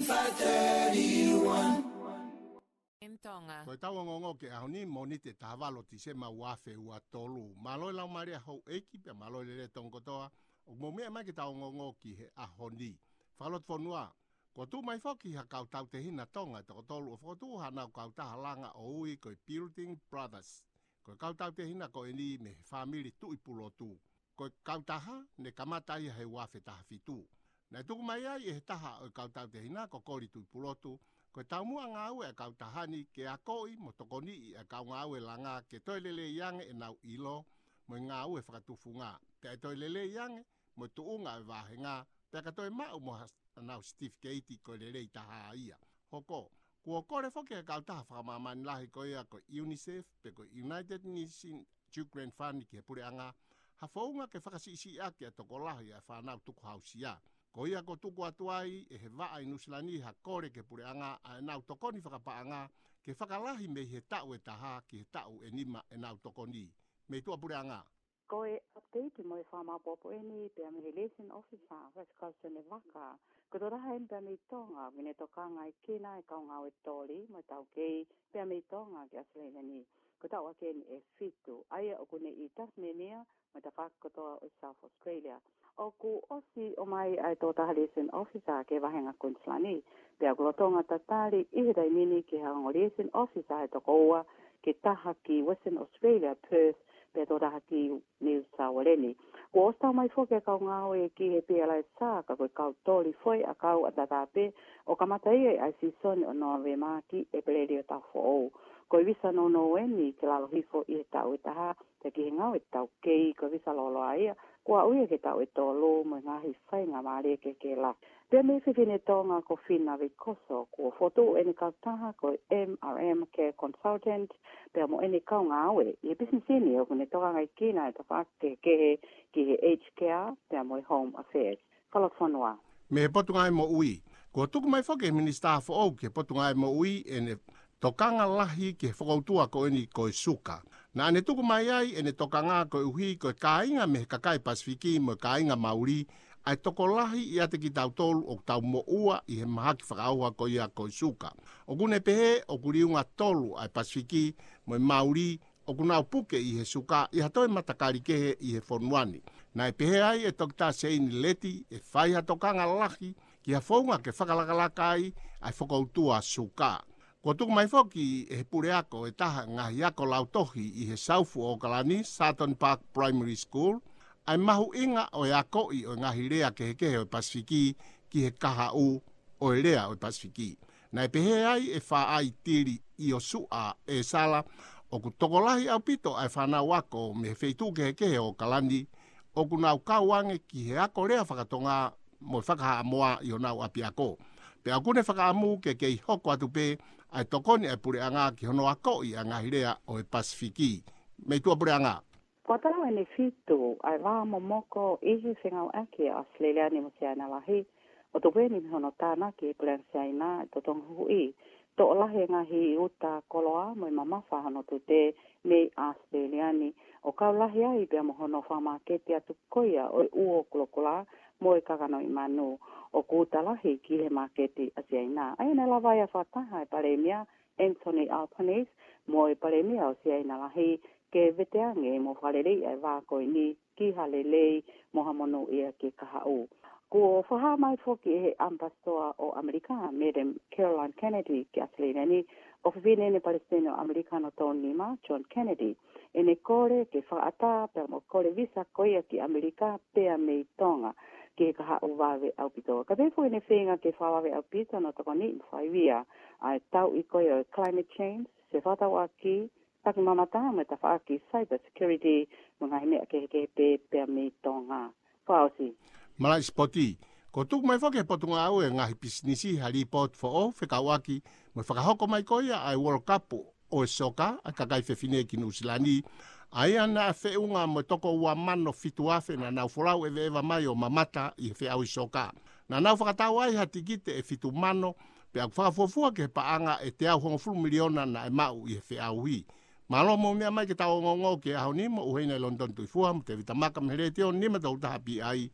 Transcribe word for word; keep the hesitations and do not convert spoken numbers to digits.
five thirty-one. M Tonga. Ko e tau ongoongo ki he ʻaho ni, Mōnite taha valu Tīsema ua afe ua tolu. Mālō e laumālie houʻeiki pea mālō e lelei tonga kotoa ʻoku mou meʻa mai ki he tau ongoongo ki he ʻaho ni. Fakalotofonua, kuo tuʻu mai foki ha kau tautehina Tonga ʻe toko tolu ʻo fokotuʻu haʻanau kautaha langa ʻo ui ko e Building Brothers. Ko e kau tautehina ko eni mei he fāmili Tuʻipulotu. Ko e kautaha ne kamata ia he ua afe taha fitu. Naʻe tuku mai ai ʻe he taha ʻo e kau tautehina ko Koli Tuʻipulotu, ko e taumuʻa ngāue ʻa e kautaha ni ke akoʻi mo tokoniʻi ʻa e kau ngāue langa ke toe lelei ange ʻenau ʻilo mo e ngāue fakatufunga. Pea ʻe toe lelei ange mo e tuʻunga ʻo e vāhenga, pea ka toe maʻu mo ha-, ʻenau certificate ko e lelei taha ia. Hoko, kuo kole foki ʻe he kautaha fakamāmani lahi ko ia ko e UNICEF pe ko e United Nations Children Fund ki he puleʻanga, ha founga ke fakasiʻisiʻi ʻaki ʻa e tokolahi ʻa e fānau tukuhausia. Ko ia kuo tuku atu ai ʻe he vaʻa ʻi Nuʻusila ni ha kole ki he puleʻanga ʻa ʻenau tokoni fakapaʻanga ke fakalahi mei he taʻu ʻe taha ki he taʻu ʻe nima ʻenau tokoni. Mei tuʻa puleʻanga. Ko e update mo e fakamaopoopo eni pea mei he liaison officer, Vice Consul Nevaka. Ko e tokotaha eni pea mei Tonga, ʻoku ne tokangaekina e kau ngāue toli mo e taukei pea mei Tonga ki ʻAositelēlia ni. Ko e taʻu ʻaki eni ʻe fitu, ʻa ia ʻoku ne ʻi Tasmania mo e tafaʻaki kotoa ʻo South Australia. ʻOku ʻosi ʻomai ʻa e tokotaha liaison officer ki he vāhenga Queensland ni, pea ʻoku lolotonga tatali ʻi he taimi ni ki he ongo liaison officer ʻe toko ua, ke taha ki Western Australia, Perth, pea tokotaha ki New South Wales ni. Kuo ʻosi tau mai foki e kau ngāue ki he PLS, ka ko e kau toli foʻi ʻakau ʻataʻatā pē, ʻo kamata ia ʻi he sīsoni ʻo Nōvema ki ʻEpeleli ʻo e taʻu foʻou. Ko e visa nounou eni ki lalo hifo ʻi he taʻu ʻe taha, pea ki he ngāue taukei ko e visa lōloa ia, kuo aʻu ia ki he taʻu ʻe tolu mo e ngaahi faingamālie kehekehe lahi. Pea mei he fefine Tonga ko Fina Veikoso, kuo fokotuʻu ʻene kautaha ko e M R M Care Consultant, pea mo ʻene kau ngāue ʻi he pisinisi ni ʻoku ne tokangaekina e tafaʻaki kehekehe ki he aged care, pea mo e home affairs. Fakalotofonua. Mei he Potungāue Moʻui. Kuo tuku mai foki ʻe he Minisitā foʻou ki he Potungāue Moʻui ʻene tokanga lahi ki he fokoutua ko eni ko e suka. Naʻa ne tuku mai ai ʻene tokanga koeʻuhi ko e kāinga mei he kakai Pasifiki mo e kāinga Mauli, ʻa e tokolahi ʻiate kitautolu ʻoku tau moʻua ʻi he mahaki fakaʻauha ko ia ko e suka. ʻOku ne pehē ʻoku liunga tolu ʻa e Pasifiki mo e Mauli ʻoku nau puke ʻi he suka ʻi ha toe matakali kehe ʻi he fonua ni. Naʻe pehē ai ʻe Toketā Seini Leti ʻe fai ha tokanga lahi ki ha founga ke fakalakalaka ai ʻa e fokoutua suka. Kuo tuku mai foki ʻe he puleako ʻe taha ngaahi ako lautohi ʻi he South Auckland, Sutton Park Primary School, ʻa e mahuʻinga ʻo e akoʻi ʻo e ngaahi lea kehekehe ʻo e Pasifiki ki he kahaʻu ʻo e lea ʻo e Pasifiki. Naʻe pehē ai ʻe Faʻaitili ʻIosuʻa ʻEsala, ʻoku tokolahi ʻaupito ʻa e fānau ako mei he feituʻu kehekehe ʻo Auckland ʻoku nau kau ange ki he ako lea fakatonga mo e fakahaʻamoa ʻi honau ʻapiako. Pea ʻoku ne fakaʻamu ke kei hoko atu pē ʻa e tokoni ʻa e puleʻanga ki hono akoʻi ʻa e ngaahi lea ʻo e Pasifiki. Mei tuʻa puleʻanga. Kuo tau ʻeni fitu ʻa e vā momoko ʻi he fengāueʻaki ʻa ʻAositelēlia ni mo Siaina Lahi, ʻo tupu eni mei hono tānaki ʻe Puleʻanga Siaina ʻa e totongi huhuʻi. Toʻo lahi e ngaahi uta koloa mo e mamafa hono tute mei ʻAositelēlia ni, ʻo kau lahi ai pea mo hono fakamāketi atu ko ia ʻo e uo kulokula mo e kakanoʻi manu, ʻoku uta lahi ki he māketi ʻa Siaina. ʻA ia naʻe lava ai ʻa e fakataha ʻa e Palēmia Anthony Albanese mo e Palēmia ʻo Siaina Lahi ke veteange mo fakaleleiʻi ʻa e vā ko eni ki ha lelei mo ha monūʻia ki he kahaʻu. Kuo fakahā mai foki ʻe he ʻAmipasitoa ʻo ʻAmelika, Madam Caroline Kennedy, ki ʻAositelēlia ni, ʻofefine ʻene Palesiteni ʻo ʻAmelika hono tolu nima, John Kennedy, ʻene kole ke fakaʻatā pea mo e kole visa ko ia ki ʻAmelika pea mei Tonga ki he kahaʻu vave ʻaupito. Kae pehē foki ʻene feinga ke fakavave ʻaupito hono tokoniʻi mo fakaivia ʻa e tauʻi ko ia ʻo e climate change, sio fakatauʻaki, taki mamata mo e tafaʻaki cyber security mo e ngaahi meʻa kehekehe pē pea mei Tonga. Fakaʻosi. Malaʻe sipoti. Kuo tuku mai foki ʻe he Potungāue Ngaahi Pisinisi ha lipooti foʻou fekauʻaki mo e fakahoko mai ko ia ʻa e World Cup ʻo e soka ʻa e kakai fefine ki Nuʻusila ni, ʻa ia naʻe feʻunga mo e toko ua mano fitu afe naʻa nau folau ʻeveʻeva mai ʻo mamata ʻi he feʻauhi soka. Naʻa nau fakatau ai ha tikite ʻe fitu mano, pea ʻoku fakafuofua ki he paʻanga ʻe teau hongofulu miliona naʻe maʻu ʻi he feʻauhi. Mālō hoʻomou meʻa mai ki he tau ongoongo ki he ʻaho ni, mo ʻUhena ʻi Lonitoni Tuʻifua mo Tēvita Maka mei he Letiō nima tolu taha P I,